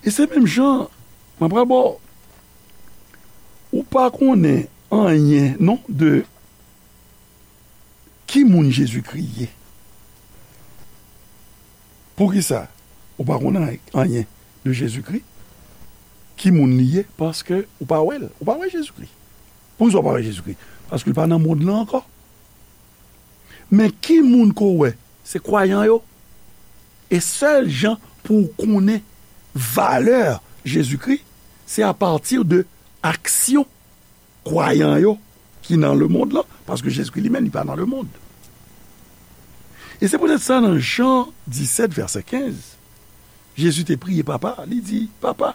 E se menm jan, mwen pral ba w, ou pa konnen anyen, non, de ki moun Jezikri ye. Poukisa ou pa konnen anyen de Jezikri? Ki moun li ye? Paske ou pa wè l. Ou pa wè Jezikri. Poukisa ou pa wè Jezikri? Paske l pa nan mond lan ankò. Men ki moun ke w wè? Se kwayan yo. E sèl jan pou w konnen valè Jezikri, se apati de aksyon kwayan yo ki nan lemonn lan, paske Jezikri li menm, li pa nan lemonn. E se poutèt sa, nan Jan disèt, vèsè kenz, Jezi te priye Papa, li di, "Papa,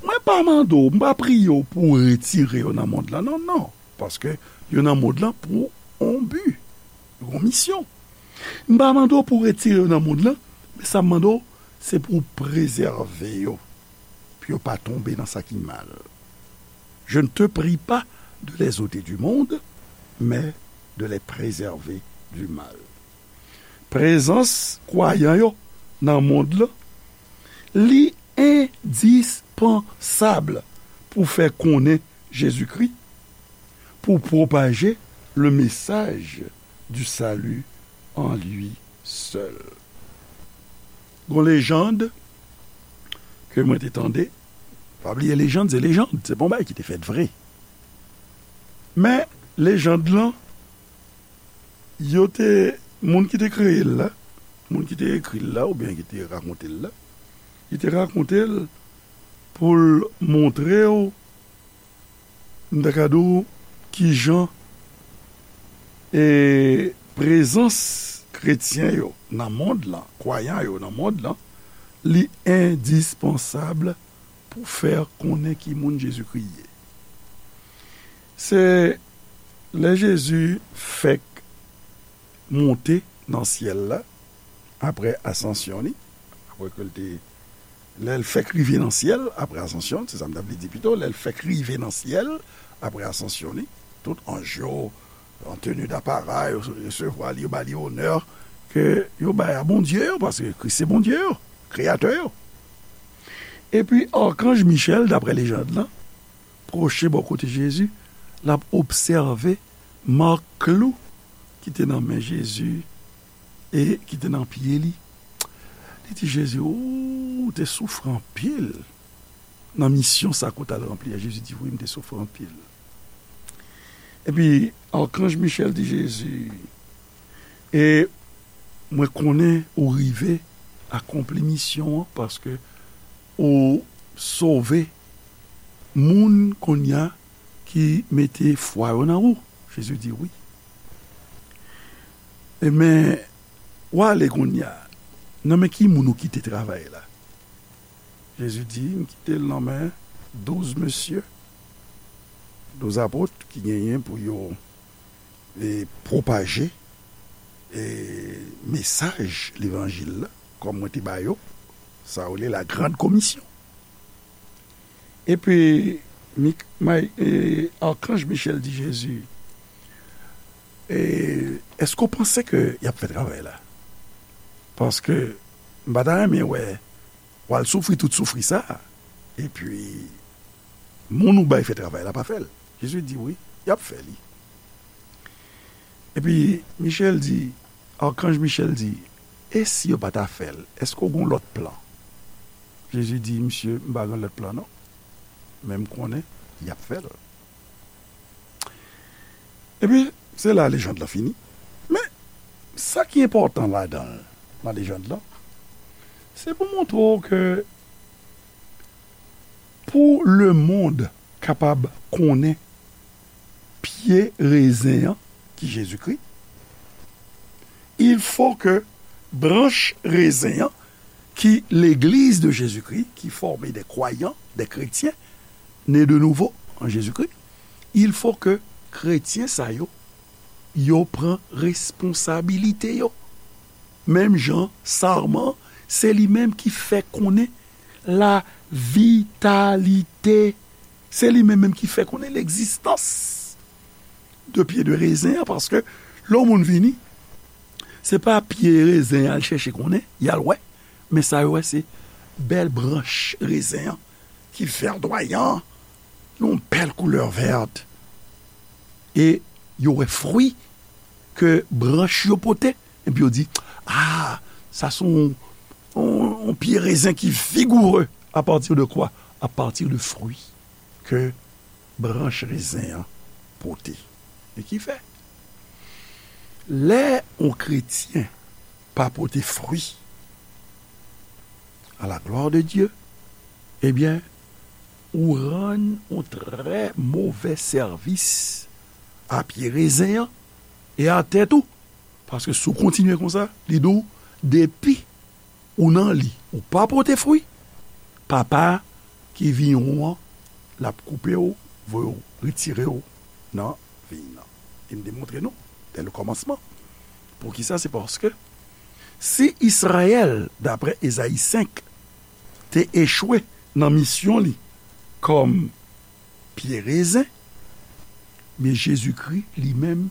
mwen pa mande w, m pa priye w pou w retire yo nan mond lan, non, non, paske yo nan mond lan pou yon bi, yon misyon. M pa mande w pou w retire yo nan mond lan, men sa m mande w, se pou w prezève yo, pou yo pa tonbe nan sa ki mal. Je ne te prie pas de les ôter du monde, mais de les préserver du mal." Prezans kwayan yo nan mond lan, li endispansab pou fè konnen Jezikri, pou pwopaje le message du salut en lui seul. Gon lejann ke mwen te tande, pa bliye lejann, se lejann, se pa yon bagay ki te fèt vre. Men lejann lan, yo te, moun ki te kreye l la, moun ki te ekri l la, oubyen ki te rakonte l la, li te rakonte l pou l montre w, m ta ka di w, kijan, e, prezans kretyen yo nan mond lan, kwayan yo nan mond lan, li endispansab pou fè konnen ki moun Jezikri ye. Se lè Jezi fèk monte nan syèl la, apre asansyon li, apre ke l te, lè l fèk rive nan syèl, apre asansyon, se sa m ta vle di pito, lè l fèk rive nan syèl, apre asansyon li, tout anj yo, an teni dapara, yo resevwa li, yo ba li onè ke yo bay a Bondye yo, paske Kris se Bondye yo, kreyatè yo. Epi, akanj Michèl, dapre lejann lan, pwoche bò kote Jezi, l ap obsève mak klou ki te nan men Jezi e ki te nan pye li. Li di Jezi, "Ou te soufri anpil nan misyon sa ke w t al ranpli a." Jezi di, "Wi, m te soufri anpil." Epi, akanj Michèl di Jezi, "E mwen konnen ou rive akonpli misyon an, paske ou sove moun kounye a ki mete fwa yo nan ou." Jezi di, "Wi. E men, w ale kounye a. Nan men ki moun ou kite travay la?" Jezi di, "M kite l nan men douz mesye, douz apot ki genyen pou yo e pwopaje e mesaj levanjil la, kòm mwen te ba yo, sa yo rele la grande commission. Epi, Mik- May- e, Akanj Michèl di Jezi, e, èske w panse ke y ap fè travay la? Paske m pa ta renmen wè w al soufri tout soufri sa a, epi moun ou bay fè travay la pa fè l. Jezi di, wi, y ap fè li. Epi Michèl di, Akanj Michèl di, e si yo pa ta fè l, èske w gen lòt plan? Jezi di, misye, m pa gen lòt plan non, men m konnen y ap fè l. Epi, se la lejand lan fini. Men, sa ki enpòtan ladan l, nan lejand lan, se pou montre w ke pou lemonn kapab konnen pye rezen an, ki Jezikri, il faut que branch rezen an, ki legliz de Jezikri, ki fòme de kwayan, de kretyen, ne de nouvo an Jezikri, il faut que kretyen sa yo, yo pran responsabilite yo. Menm jan, sarman, se li menm ki fè konnen la vitalite. Se li menm menm ki fè konnen legzistans de pye de rezen an, paske lè yon moun vini, se pa pye rezen y al chèche konnen, y al wè, men sa yo wè se bèl branch rezen an ki vèdwayan, yon bèl koulè vèt. E yo wè fwi ke branch yo pote, epi yo di, ah, sa se yon, yon, yon pye rezen ki vigoure. À partir de quoi? À partir de fwi ke branch rezen an pote. E ki fè, lè yon kretyen pa pote fwi, à la gloire de Dieu, ebyen, ou rann yon trè movè sèvis a pye rezen an e a tèt ou. Paske si w kontinye konsa, li di w, depi ou nan li, ou pa pote fwi, Papa ki viyon an, l ap koupe w, voye w, retire w nan viy nan. E m te montre nou, dè le kòmansman. Poukisa? Se paske si Izrayèl, daprè Ezayi senk, te echwe nan misyon li kòm pye rezen, men Jezikri, li menm,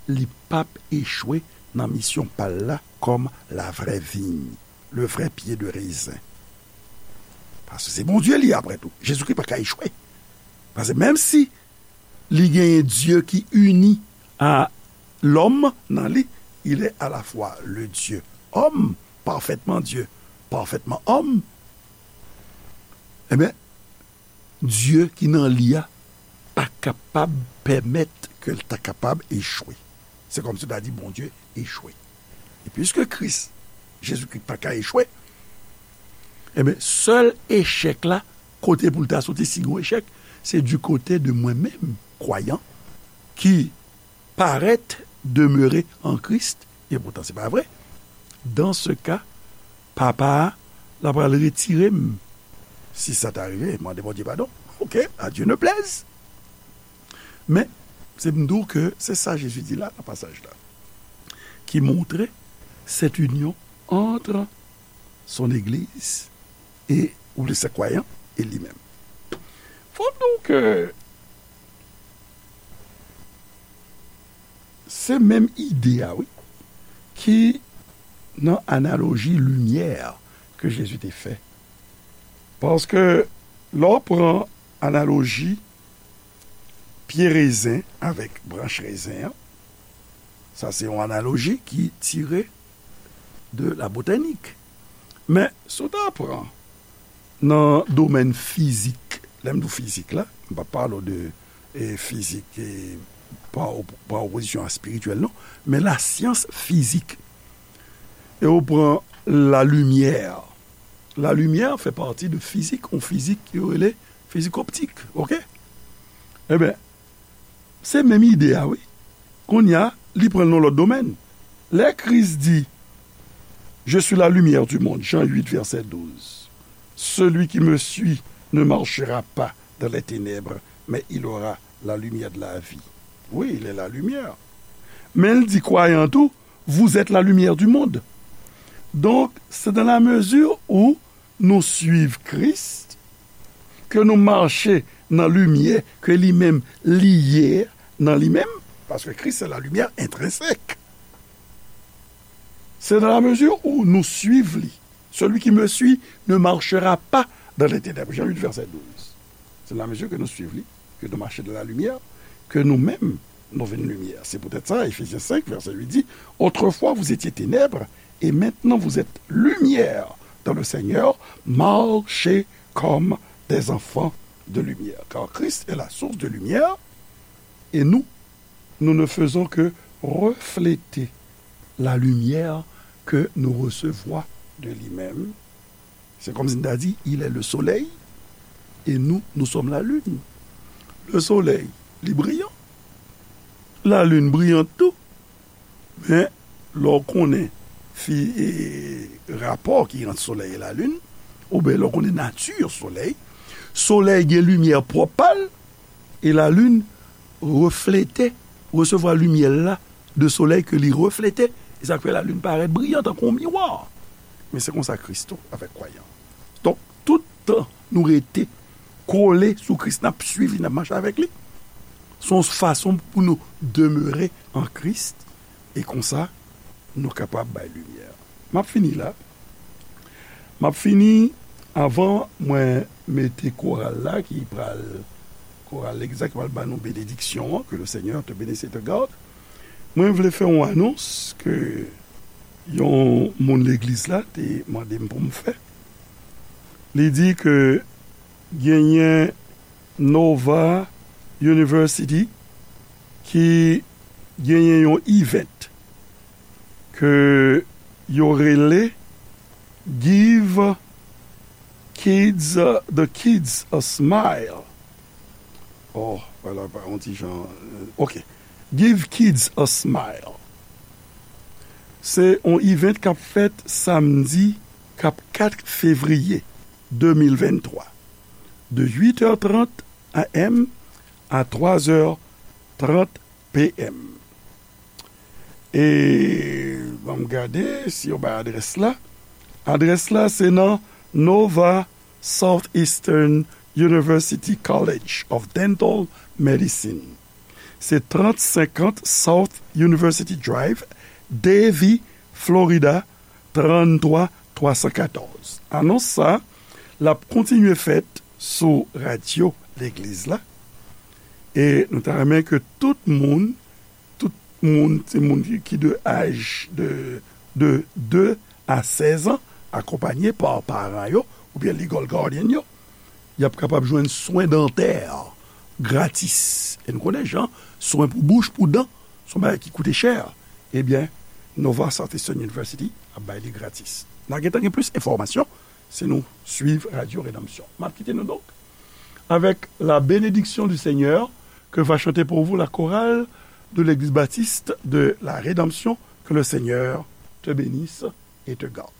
li p ap echwe nan misyon pa l la kòm la vraie vigne, le vrai pied de raisin. Paske se Bondye li, apre tou. Jezikri pa ka echwe. Paske menm si li genyen Dye ki ini a lòm nan li, il est à la fois le Dieu homme, parfaitement Dieu, parfaitement homme, ebyen, Dye ki nan li a pa kapab pèmèt ke l ta kapab echwe. Se kòmsi w ta di Bondye echwe. E piske Kris, Jezikri pa ka echwe, ebyen, sèl echèk la, kote pou l ta soti, si gen yon echèk, se du côté de mwen menm, kwayan, ki parèt demere an Kris, e poutan se pa vre. Dan se ka, Papa a, l ap al retire m. Si sa ta rive, mande Bondye padon. Ok, à Dieu ne plaise. Men, se m di w ke se sa Jezi di la, nan pasaj la, ki montre cette union entre son Église et, ou le saint croyant, et lui-même. Fò m di w ke se menm ide a, wi, ki nan analoji limyè ke Jezi te fè. Paske lè w pran analoji pye rezen avèk branch rezen an, sa se yon analoji ki tire de la botanik. Men, si w ta pran nan domèn fizik, lè m di w fizik la, m p ap pale w de, e, fizik, e, pa op-, pa opozisyon a espirityèl, non, men lasyans fizik. E w pran lalimyè. Lalimyè fè pati de fizik, yon fizik yo rele fizik optik, ok? Ebyen, se menm ide a, wi. Kounye a, li pran l nan lòt domèn. Lè Kris di, Je suis la lumière du monde, Jean huit, verset douze. Celui qui me suit ne marchera pas dans les ténèbres, mais il aura la lumière de la vie. Oui, il est la lumière. Men l di kwayan tou, vous êtes la lumière du monde. Donk, se dans la mesure où nou swiv Kris, ke nou mache nan limyè ke li menm li ye nan li menm, paske Kris se la lumière intrinsèque. C'est dans la mesure où nous suivons lui. Celui qui me suit ne marchera pas dans les ténèbres. Jean huit, verset douze. C'est dans la mesure que nous suivons lui, que nous marchons dans la lumière, que nous-mêmes, nous venons lumière. C'est peut-être ça, Éphésiens cinq, verset huit dit, autrefois vous étiez ténèbres, et maintenant vous êtes lumière dans le Seigneur, marchez comme des enfants de lumière. Car Christ est la source de lumière, et nous, nous ne faisons que refléter la lumière que nous recevons de lui-même. C'est comme si nous dit, il est le soleil, et nous, nous sommes la lune. Le soleil, li briyan. La lune briyante tou. Men, lè w konnen fi, e, rapò ki ant solèy e lalin, oubyen lè w konnen nati solèy, solèy gen limyè pwòp pa l, e lalin reflete, resevwa limyè l la de solèy ke li reflete, e sa k fè lalin parèt briyan tankou yon miwa. Men se konsa Kris tou avèk kwayan. Donk, tout tan nou rete kole sou Kris, n ap swiv li, n ap mache avèk li. Se yon fason pou nou demere an Kris, e konsa, nou kapab bay limyè. M ap fini la. M ap fini, avan mwen mete koral la, ki pral, koral legliz la, ki pral ba nou benediksyon an, que le Seigneur te bénisse et te garde. Mwen vle fè yon anons ke yon moun legliz la te mande m pou m fè. Li di ke genyen Nova University ki genyen yon event ke yo rele Give Kids, the Kids a Smile. Oh, wala, pa yon ti jan, euh, ok. Give Kids a Smile. Se yon event k ap fèt samdi k ap kat fevriye de mil venntwa, de uit è trant a m a twa è trant p m. E ban m gade si yo bay adrès la. Adrès la, se nan Nova Southeastern University College of Dental Medicine. Se trant senkant South University Drive, Davie, Florida, trant twa twa san katòz. Anons sa, l ap kontinye fèt sou radyo legliz la. E nou ta renmen ke tout moun, tout moun, se moun ki, ki de aj de, de de a sèz an, akonpaye pa paran yo, oubyen legal guardian yo, y ap kapab jwenn swen dantè gratis. E nou konnen jan, swen pou bouch, pou dan, se yon bagay ki koute chè. Ebyen, Nova Southeastern University ap bay li gratis. N a gentan gen plis enfòmasyon si nou swiv Radyo Redanmsyon. M ap kite nou donk avec la bénédiction du Seigneur que va chanter pour vous la chorale de l'Église baptiste de la Rédemption. Que le Seigneur te bénisse et te garde.